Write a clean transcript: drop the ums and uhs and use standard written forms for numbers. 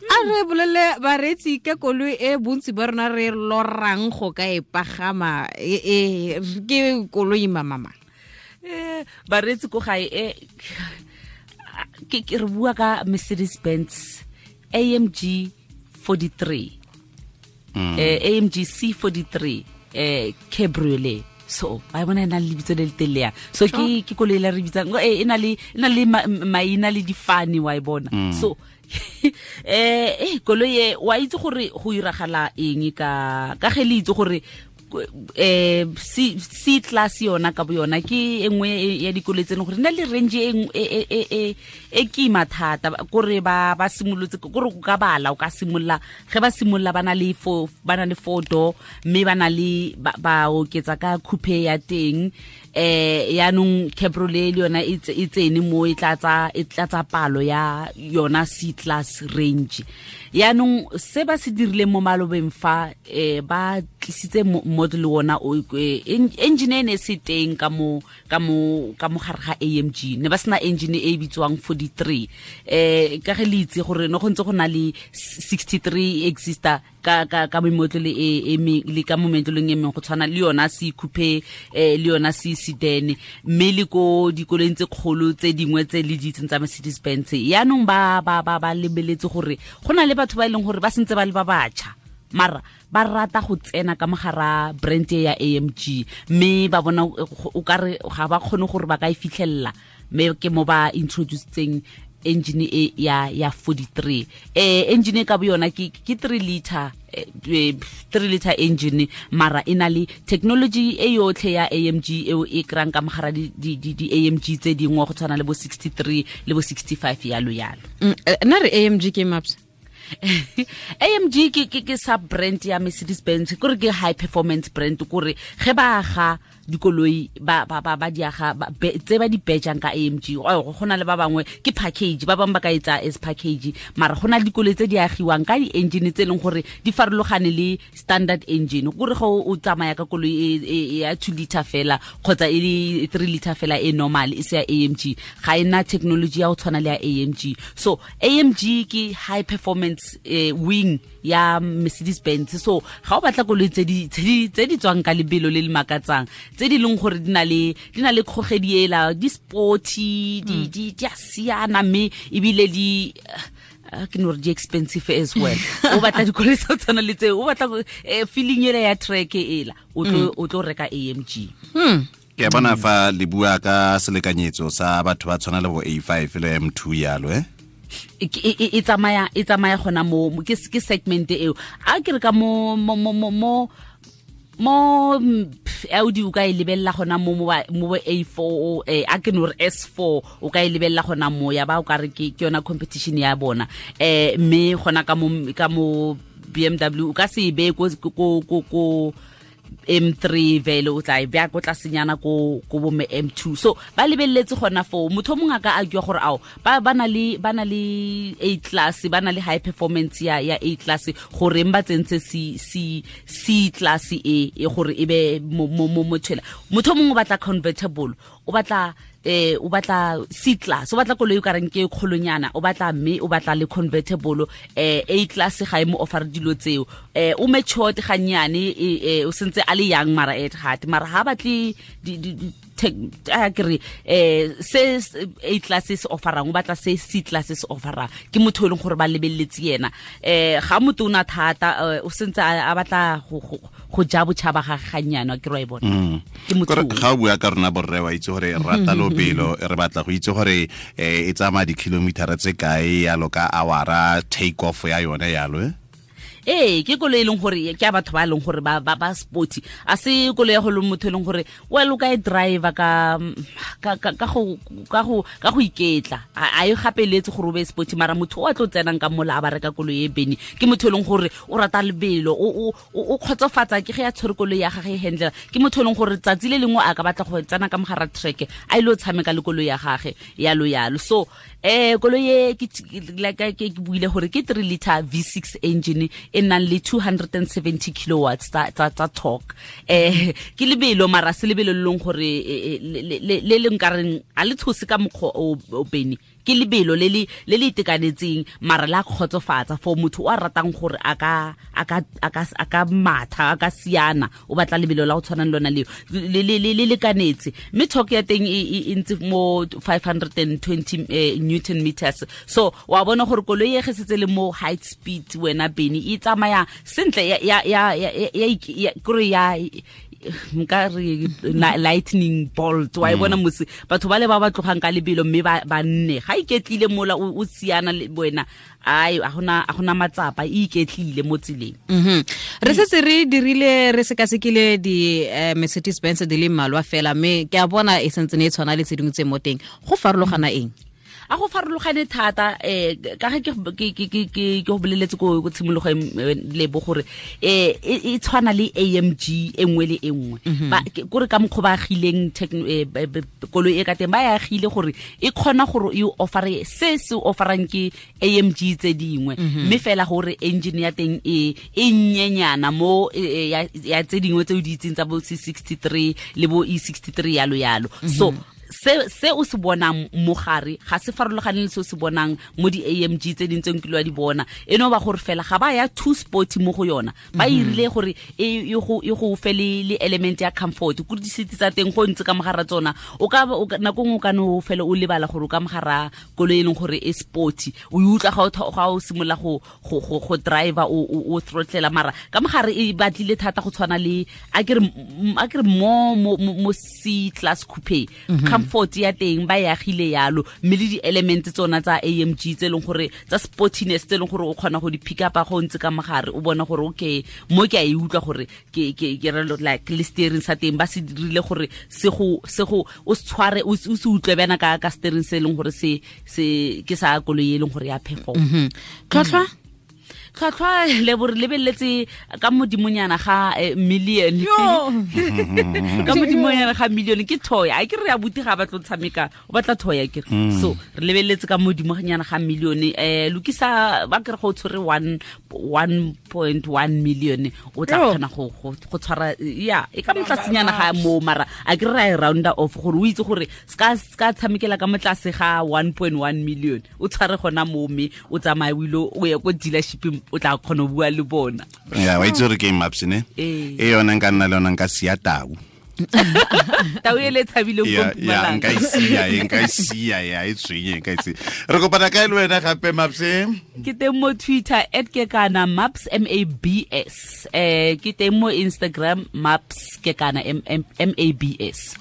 A re bolele bareetsi ka koloi e bontsi ba rona re lorang go ka e pagama, e ke koloi mamama. Bareetsi ko gae, ke re bua ka Mercedes Benz AMG 43, AMG C43 cabriolet. So ba bona e na le lebitso le le telele yang. So ke koloi la re bitsang, e na le maina le difane, wa e bona. So koloi e, wa itse gore go iragala eng ka ge le itse gore C class yona ka bo yona ke e nngwe ya dikoloi tse leng gore na le range e kima thata, kore ba simolotse kore o ka bala, o ka simolola ge ba simolola ba na le four, ba na le four door, mme ba na le ba oketsa ka coupe ya teng. Yaanong cabriolet le yona e tsene mo, e tlatsa palo ya yona C class range. Yaanong se ba se dirileng mo malobeng fa, ba tlisitse model ona o, engine e ne se teng ka mo gare ga AMG, ne ba sena engine e bitswang 43. Ka ge le itse gore no go ntse go na le 63 exista ka memotlolo e le ka mo metlolong e mengwe, go tshwana le yona C coupe, le yona C sedan, mme le ko dikoloing tse kgolo tse dingwe tse le di itseng tsa Mercedes Benz. Yaanong ba lebeletse gore go na le batho ba e leng gore ba sentse ba le ba batjha, mara ba rata go tsena ka mogara brand e ya AMG, mme ba bona o kare ga ba kgone gore ba ka e fitlhelela, mme ke mo ba introducetseng engine e ya 43. Engine e ka bo yona ke 3 liter, 3 liter engine, mara e na le technology e yotlhe ya AMG eo e krang ka mogara di AMG tse dingwe, go tshwana le bo 63 le bo 65, yalo yalo. Nna re AMG ke maps. AMG ke sub brand ya Mercedes Benz, kore ke high performance brand, kore ge ba aga dikoloi ba di aga tse ba di bejang ka AMG. Oh, go na le ba bangwe ke package, ba bangwe ba ka etsa as package, mara go na le dikoloi tse di agiwang ka di-engine tse e leng gore di farologane le standard engine, kore go o tsamaya ka koloi e ya 2 liter fela kgotsa e le 3 liter fela e normal, e se ya AMG, ga e na technology ya go tshwana le ya AMG. So AMG ke high performance wing ya Mercedes Benz. So ga o batla koloi tse di tswang ka lebelo le le makatsang, tse di leng gore di na le kgogedi ela, di sporty, di a siana, mme ebile di ke no re di expensive as well, o batla dikoloi tsa go tshwana le tseo, o batla feeling ela ya track ela, o tlo reka AMG. Ke a bona fa le bua ka selekanyetso sa batho ba tshwana le bo A5 le M2 yalo. E tsamaya gona mo ke segment eo, a ke re ka mo Audi o ka e lebelela gona mo bo A4, a ke no re S4 o ka e lebelela gona mo, ya ba o ka re ke yona competition ya bona. Mme gona ka mo BMW o ka se e beye ko M3 vele, o tla e bea ko tlasenyana ko bo me M2. So ba lebeletse gona foo. Motho o mongwe a ka argue gore ao ba na le A class, ba na le high performance ya A class, goreng ba tsentse C class e gore e be mo tshela. Motho o mongwe o batla convertible, o batla C class, o batla koloi o ka reng ke kgolonyana, o batla, mme o batla le convertible. A class ga e mo offer dilo tseo. O matured ganyane, o sentse a le young mara at heart, mara ha batle di a ke re se A class se offerang, o batla se C class se offerang. Ke motho e leng gore ba lebeletse yena. Ga motho o na thata, o sentse a batla go ja botšhaba ga ganyane, ke re wa e bona, ke motho Kore o. Ga o bua ka rona borre, wa itse gore re rata lobelo, re batla go itse gore e tsamaya di-kilometer tse kae yalo ka awara, take off ya yone yalo. Ee, ke koloi e leng gore ke a batho ba e leng gore ba sporty. A se koloi ya go le motho e leng gore well o ka e driver ka go iketla, a e gapeletse gore o be sporty, mara motho o a tlo tsenang ka mola a ba reka koloi e bene ke motho e leng gore o rata lebelo, o kgotsofatsa ke ge a tshwere koloi ya gage e handlela. Ke motho e leng gore tsatsi le lengwe a ka batla go tsena ka mogara track a ile o tshameka le koloi ya gage, yalo yalo. So koloi e ke like ke buile gore ke 3 liter V6 engine e nang le 270 kilowatts tsa torque. Ke lebelo, mara se lebelo le leng gore le le nkareng a le tshose ka mokgwa o bene. Ke lebelo le le le le itekanetseng mara la kgotsofatsa for motho o a ratang gore a ka matha, a ka siana, o batla lebelo la go tshwana le lona leo le lekanetse. Mme torque ya teng e ntse mo 520 newton meters. So wa bona gore koloi e ge setse le mo high speed wena Beni e tsamaya sentle ya kore ya nka re lightning bolt wa e bona mose batho ba le ba ba tlogang ka lebelo mme ba nne ga iketlile mola o siana le wena ai a gona matsapa e iketlile mo tseleng. Re setse re dirile re sekasekile di Mercedes Benz di le mmalwa fela, mme ke a bona e sentse ne e tshwana le tse dingwe tse mo teng. Go farologana eng? A go farologane thata ka ge ke go boleletse ko tshimologong lebo gore e tshwana le AMG e nngwe le e nngwe. Kore ka mokgwa ba agileng koloi e ka teng, ba e agile gore e kgona gore e offere se se offerang ke AMG tse dingwe, mme fela gore engine ya teng e nnyenyana mo ya tse dingwe tse o di itseng tsa bo C63 le bo E63 yalo yalo. So se o se bonang mo gare ga se farologane le se o se bonang mo di AMG tse ding tse nkile wa di bona. E no ba gore fela ga ba ya too sporty mo go yona, ba irile gore e go fe le element ya comfort. Ko di seat tsa teng go ntse ka mogara tsona, o ka nako nngwe o ka no fela o lebala gore o ka mogara koloi e leng gore e sporty, o utlwa ga o simolola go driver o throttlela, mara ka mogare e batlile thata go tshwana le a ke re mo C class coupe. Comfort ya teng ba e agile yalo, mme le di-element tsona tsa AMG tse leng gore tsa sportiness tse leng gore o kgona go di pick up go ntse ka mogare, o bona gore okay mo ke a e utlwa gore ke re like le steering sa teng ba se dirile gore se go o se tshware o se utlwe bana ka steering se leng gore se ke sa koloi e leng gore ya perform. Tlhwatlhwa tlhwatlhwa le bo re lebeletse ka modimonyana ga million, ka modimonyana ga million ke toy. A ke re ya buti ga ba tlo tshameka o batla toy a ke re. So re lebeletse ka modimonyana ga million, lokisa ba ke re go tshwere 1.1 million o tla kgona go tshwara ya e ka motlasenyana ga mo, mara a ke re ra e rounda off gore o itse gore ska tshamekela ka motlase ga 1.1 million, o tshware gona mo mme o tsamaye o ile o ye ko dealership o tla kgona go bua le bona. Ya wa itse gore ke maps ne e yona nka nna le yona nka sia tau. Tau e le tshabileng ko Mpumalanga. Nka e sia ya e tswenye nka e sia. Re kopana kae le wena gape Maps? Ke teng mo Twitter @kekana Maps MABS. Ke teng mo Instagram Maps Kekana MABS.